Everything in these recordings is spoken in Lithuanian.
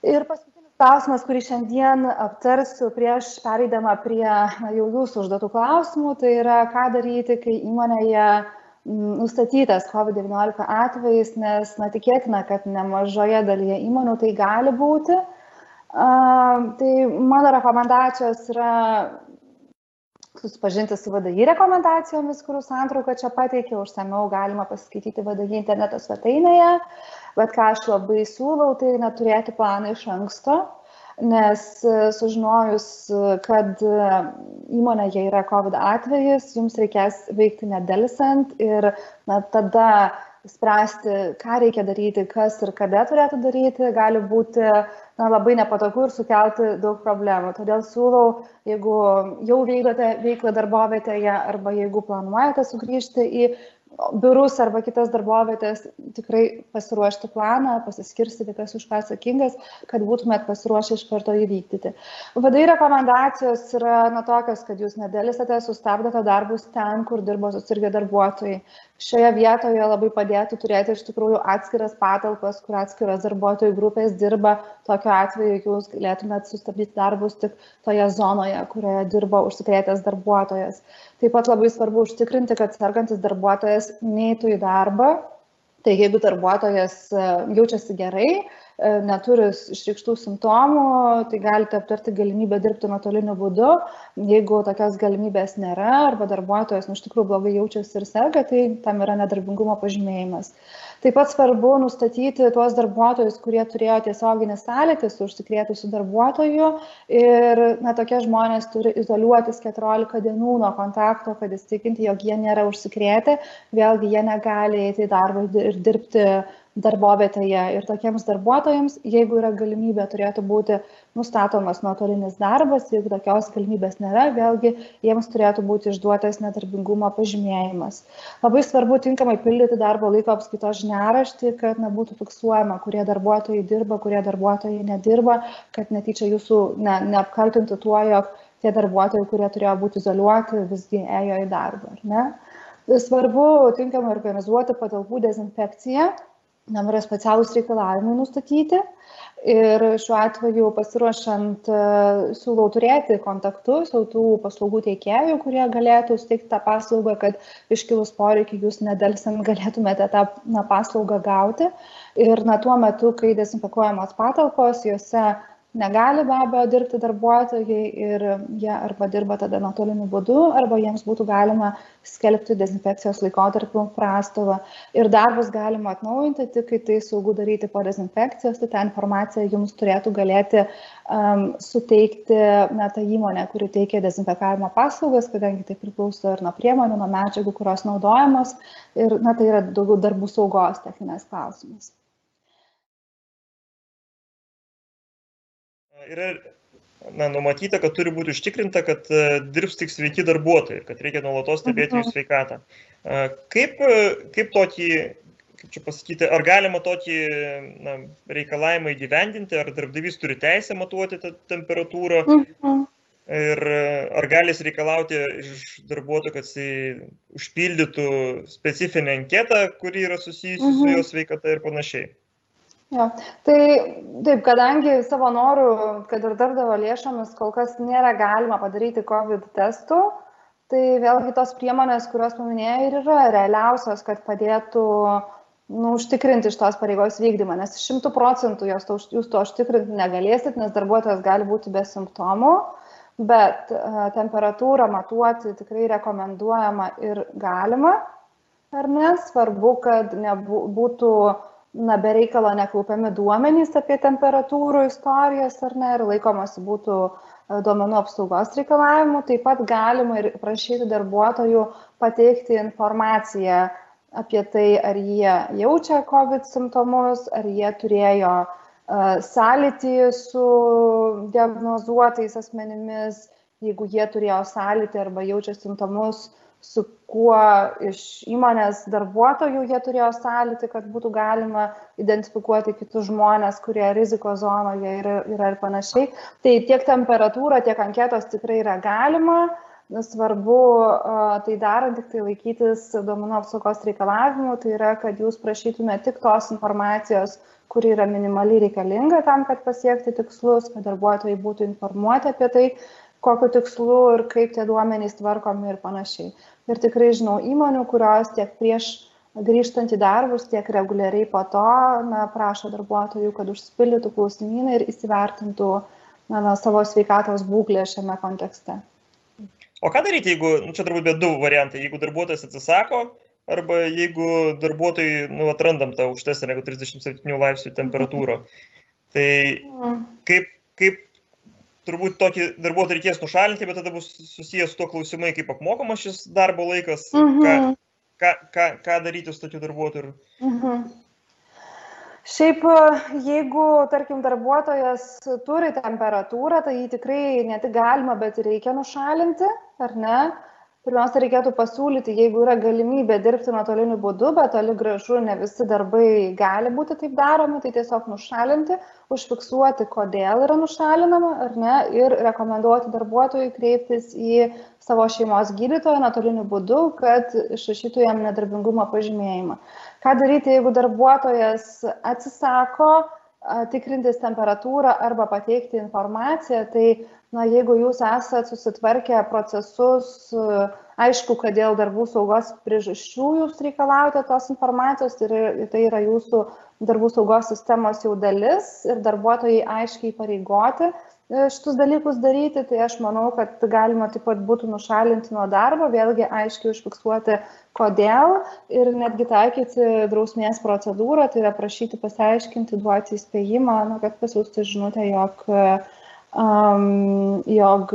Ir paskutinis klausimas, kurį šiandien aptarsiu prieš pereidama prie jau jūsų užduotų klausimų, tai yra, ką daryti, kai įmonėje nustatytas COVID-19 atvejis, nes tikėtina, kad nemažoje dalyje įmonių tai gali būti. Tai mano rekomendacijos yra susipažinti su VDI rekomendacijomis, kurių santrauką čia pateikiau, užsamiau galima pasiskaityti VDI interneto svetainėje, bet ką aš labai siūlau, tai neturėti planą iš anksto, nes sužinojus, kad įmonėje yra COVID atvejis, jums reikės veikti nedelsiant ir tada spręsti, ką reikia daryti, kas ir kada turėtų daryti, gali būti labai nepatogu ir sukelti daug problemų. Todėl siūlau, jeigu jau vykdote veiklą darbovietėje arba jeigu planuojate sugrįžti į biurus arba kitas darbovietės, tikrai pasiruošti planą, pasiskirstyti, kas už ką atsakingas, kad būtumėt pasiruošę iš karto įvykdyti. VDI rekomendacijos yra tokios, kad jūs nedėlisate, sustabdote darbus ten, kur dirbo susirgę darbuotojai. Šioje vietoje labai padėtų turėti iš tikrųjų atskiras patalpas, kur atskiros darbuotojų grupės dirba. Tokiu atveju jūs galėtumėt sustabdyti darbus tik toje zonoje, kurioje dirba užsikrėtęs darbuotojas. Taip pat labai svarbu užtikrinti, kad sergantis darbuotojas neitų į darbą. Tai jeigu darbuotojas jaučiasi gerai, neturi išreikštų simptomų, tai galite aptarti galimybę dirbti nuotoliniu būdu. Jeigu tokios galimybės nėra arba darbuotojas iš tikrųjų blogai jaučiasi ir serga, tai tam yra nedarbingumo pažymėjimas. Taip pat svarbu nustatyti tuos darbuotojus, kurie turėjo tiesioginį sąlytį su užsikrėtusiu darbuotoju ir tokie žmonės turi izoliuotis 14 dienų nuo kontakto, kad įsitikinti, jog jie nėra užsikrėtę. Vėlgi jie negali eiti į darbą ir dirbti darbovietėje ir tokiems darbuotojams, jeigu yra galimybė, turėtų būti nustatomas nuotolinis darbas, jeigu tokios galimybės nėra, vėlgi jiems turėtų būti išduotas nedarbingumo pažymėjimas. Labai svarbu tinkamai pildyti darbo laiko apskaitos žiniaraštį, kad nebūtų fiksuojama, kurie darbuotojai dirba, kurie darbuotojai nedirba, kad netyčia jūsų neapkaltintų tuo, jog tie darbuotojai, kurie turėjo būti izoliuoti, visgi ėjo į darbą. Ar ne? Svarbu tinkamai organizuoti patalpų dezinfekciją. Tam yra specialūs reikalavimai nustatyti ir šiuo atveju pasiruošiant siūlau turėti kontaktus jau tų paslaugų teikėjų, kurie galėtų suteikti tą paslaugą, kad iškilus poreikį jūs nedelsiant galėtumėte tą paslaugą gauti. Ir tuo metu, kai dezinfekuojamos patalpos, juose negali be abejo dirbti darbuotojai ir jie arba dirba tada nuotoliniu būdu, arba jiems būtų galima skelbti dezinfekcijos laikotarpiu prastovą. Ir darbus galima atnaujinti tik, kai tai saugu daryti po dezinfekcijos, tai tą informaciją jums turėtų galėti suteikti ta įmonė, kuri teikia dezinfekavimo paslaugas, kadangi tai priklauso ir nuo priemonių, nuo medžiagų, kurios naudojamos. Ir tai yra daugiau darbų saugos techninės klausimas. Yra numatyta, kad turi būti užtikrinta, kad dirbs tik sveiki darbuotojai, kad reikia nuolatos stebėti jų sveikatą. Kaip tokį, kaip čia pasakyti, ar galima tokį reikalavimą įgyvendinti, ar darbdavys turi teisę matuoti tą temperatūrą ir ar gali jis reikalauti iš darbuotojų, kad jis užpildytų specifinę anketą, kuri yra susijusi su jo sveikata ir panašiai. Jo. Tai taip, kadangi savo norų, kad ir darbdavio lėšomis kol kas nėra galima padaryti COVID testų, tai vėlgi tos priemonės, kurios paminėjau, ir yra realiausios, kad padėtų užtikrinti šitos pareigos vykdymą, nes 100% jūs to užtikrinti negalėsit, nes darbuotojas gali būti be simptomų, bet temperatūrą matuoti tikrai rekomenduojama ir galima, ar ne? Svarbu, kad nebūtų be reikalo nekaupiami duomenys apie temperatūrų istorijas, ar ne, ir laikomasi būtų duomenų apsaugos reikalavimų. Taip pat galima ir prašyti darbuotojų pateikti informaciją apie tai, ar jie jaučia COVID simptomus, ar jie turėjo sąlytį su diagnozuotais asmenimis, jeigu jie turėjo sąlytį arba jaučia simptomus, su kuo iš įmonės darbuotojų jie turėjo sąlytį, kad būtų galima identifikuoti kitus žmonės, kurie rizikos zonoje yra ir panašiai. Tai tiek temperatūra, tiek anketos tikrai yra galima svarbu tai darant tik tai laikytis duomenų apsaugos reikalavimų, tai yra, kad jūs prašytume tik tos informacijos, kuri yra minimaliai reikalinga tam, kad pasiekti tikslus, kad darbuotojai būtų informuoti apie tai, kokiu tikslu ir kaip tie duomenys tvarkomi ir panašiai. Ir tikrai žinau įmonių, kurios tiek prieš grįžtant į darbus, tiek reguliariai po to prašo darbuotojų, kad užsipildytų klausimyną ir įsivertintų savo sveikatos būklę šiame kontekste. O ką daryti, jeigu, čia turbūt bet du variantai, jeigu darbuotojas atsisako, arba jeigu darbuotojai atrandam tą aukštesnę negu 37 laipsnių temperatūrą. Tai kaip turbūt tokį darbuotoją reikės nušalinti, bet tada bus susijęs su tuo klausimai, kaip apmokamas šis darbo laikas, ką daryti su tokiu darbuotoju. Šiaip, jeigu, tarkim, darbuotojas turi temperatūrą, tai jį tikrai ne tik galima, bet ir reikia nušalinti, ar ne? Pirmiausia, reikėtų pasiūlyti, jeigu yra galimybė dirbti nuotoliniu būdu, bet toli gražu ne visi darbai gali būti taip daromi, tai tiesiog nušalinti, užfiksuoti, kodėl yra nušalinama, ar ne, ir rekomenduoti darbuotojui kreiptis į savo šeimos gydytoją nuotoliniu būdu, kad išrašytų jam nedarbingumo pažymėjimą. Ką daryti, jeigu darbuotojas atsisako tikrintis temperatūrą arba pateikti informaciją, tai jeigu jūs esat susitvarkę procesus, aišku, kad dėl darbų saugos priežasčių jūs reikalaujate tos informacijos, tai yra jūsų darbų saugos sistemos jau dalis ir darbuotojai aiškiai pareigoti šitus dalykus daryti, tai aš manau, kad galima taip pat būtų nušalinti nuo darbo, vėlgi aiškiai užfiksuoti, kodėl ir netgi taikyti drausmės procedūrą, tai yra prašyti pasiaiškinti, duoti įspėjimą, kad pasiųsti žinutę, jog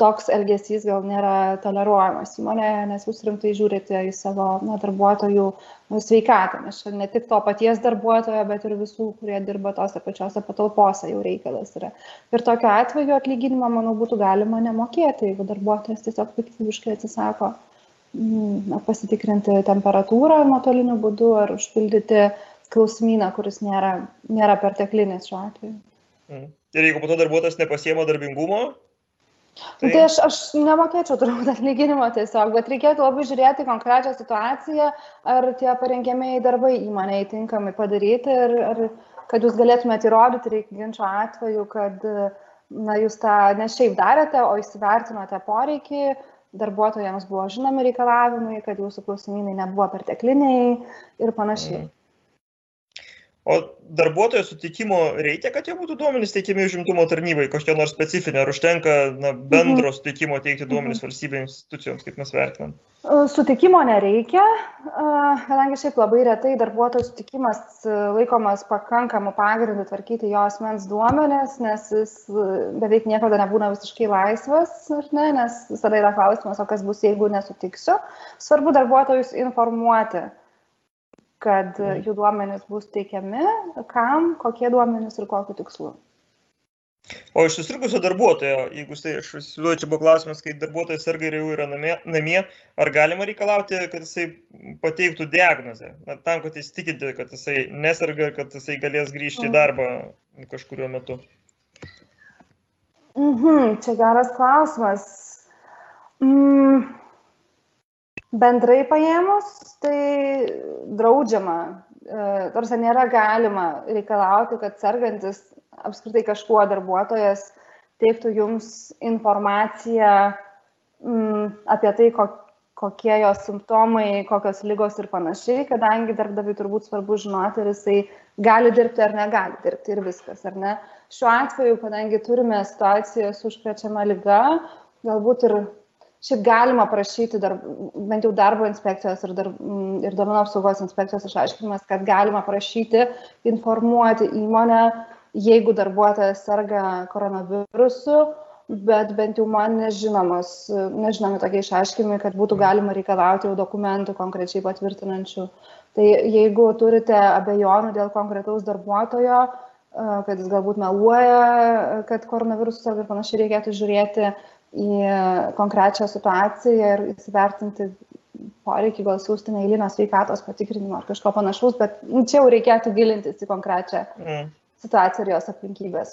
toks elgesys gal nėra toleruojamas įmonėje, nes jūs rimtai žiūrite į savo darbuotojų sveikatą, nes čia ne tik to paties darbuotojo, bet ir visų, kurie dirba tose pačiose patalpose jau reikalas yra. Ir tokiu atveju atlyginimą, manau, būtų galima nemokėti, jeigu darbuotojas tiesiog piktybiškai atsisako pasitikrinti temperatūrą nuotoliniu būdu ar užpildyti klausimyną, kuris nėra perteklinis šiuo atveju. Ir jeigu po to darbuotojas nepasiema darbingumo? Tai aš nemokėčiau turbūt atlyginimo tiesiog, bet reikėtų labai žiūrėti konkrečią situaciją, ar tie parengiamieji darbai įmonėje tinkamai padaryti ir kad jūs galėtumėte įrodyti ginčo atveju, kad jūs tą ne šiaip darėte, o įsivertinote poreikį, darbuotojams buvo žinomi reikalavimai, kad jūsų klausimynai nebuvo pertekliniai ir panašiai. O darbuotojo sutikimo reikia, kad jau būtų duomenys teikiami užimtumo tarnybai, kažkokia nors specifinė, ar užtenka bendro sutikimo teikti duomenys valstybės institucijoms, kaip mes vertinam? Sutikimo nereikia, kadangi šiaip labai retai darbuotojo sutikimas laikomas pakankamu pagrindu tvarkyti jo asmens duomenis, nes jis beveik niekada nebūna visiškai laisvas, nes visada yra klausimas, o kas bus, jeigu nesutiksiu. Svarbu darbuotojus informuoti, kad jų duomenys bus teikiami, kam, kokie duomenys ir kokiu tikslu. O iš susirgusio darbuotojo, jeigu aš įsivaizduoju, čia buvo klausimas, kai darbuotojas serga ir jau yra namie, ar galima reikalauti, kad jisai pateiktų diagnozę, tam, kad jis tikinti, kad jisai neserga ir kad jisai galės grįžti į darbą kažkuriuo metu? Čia geras klausimas. Bendrai paėmus, tai draudžiama, tarsi nėra galima reikalauti, kad sergantis apskritai kažkuo darbuotojas teiktų jums informaciją apie tai, kokie jos simptomai, kokios ligos ir panašiai, kadangi darbdaviui turbūt svarbu žinoti, ar jisai gali dirbti ar negali dirbti ir viskas, ar ne. Šiuo atveju, kadangi turime situaciją su užkrečiama liga, galbūt ir šiaip galima prašyti bent jau darbo inspekcijos ir duomenų apsaugos inspekcijos išaiškinimas, kad galima prašyti informuoti įmonę, jeigu darbuotojas serga koronavirusu, bet bent jau man nežinomi tokie išaiškinimai, kad būtų galima reikalauti jau dokumentų konkrečiai patvirtinančių. Tai jeigu turite abejonių dėl konkretaus darbuotojo, kad jis galbūt meluoja, kad koronavirusas serga ir panašiai, reikėtų žiūrėti į konkrečią situaciją ir įsivertinti poreikį, gal siūsti neeilinio sveikatos patikrinimo ar kažko panašaus, bet čia jau reikėtų gilintis į konkrečią situaciją ir jos aplinkybės.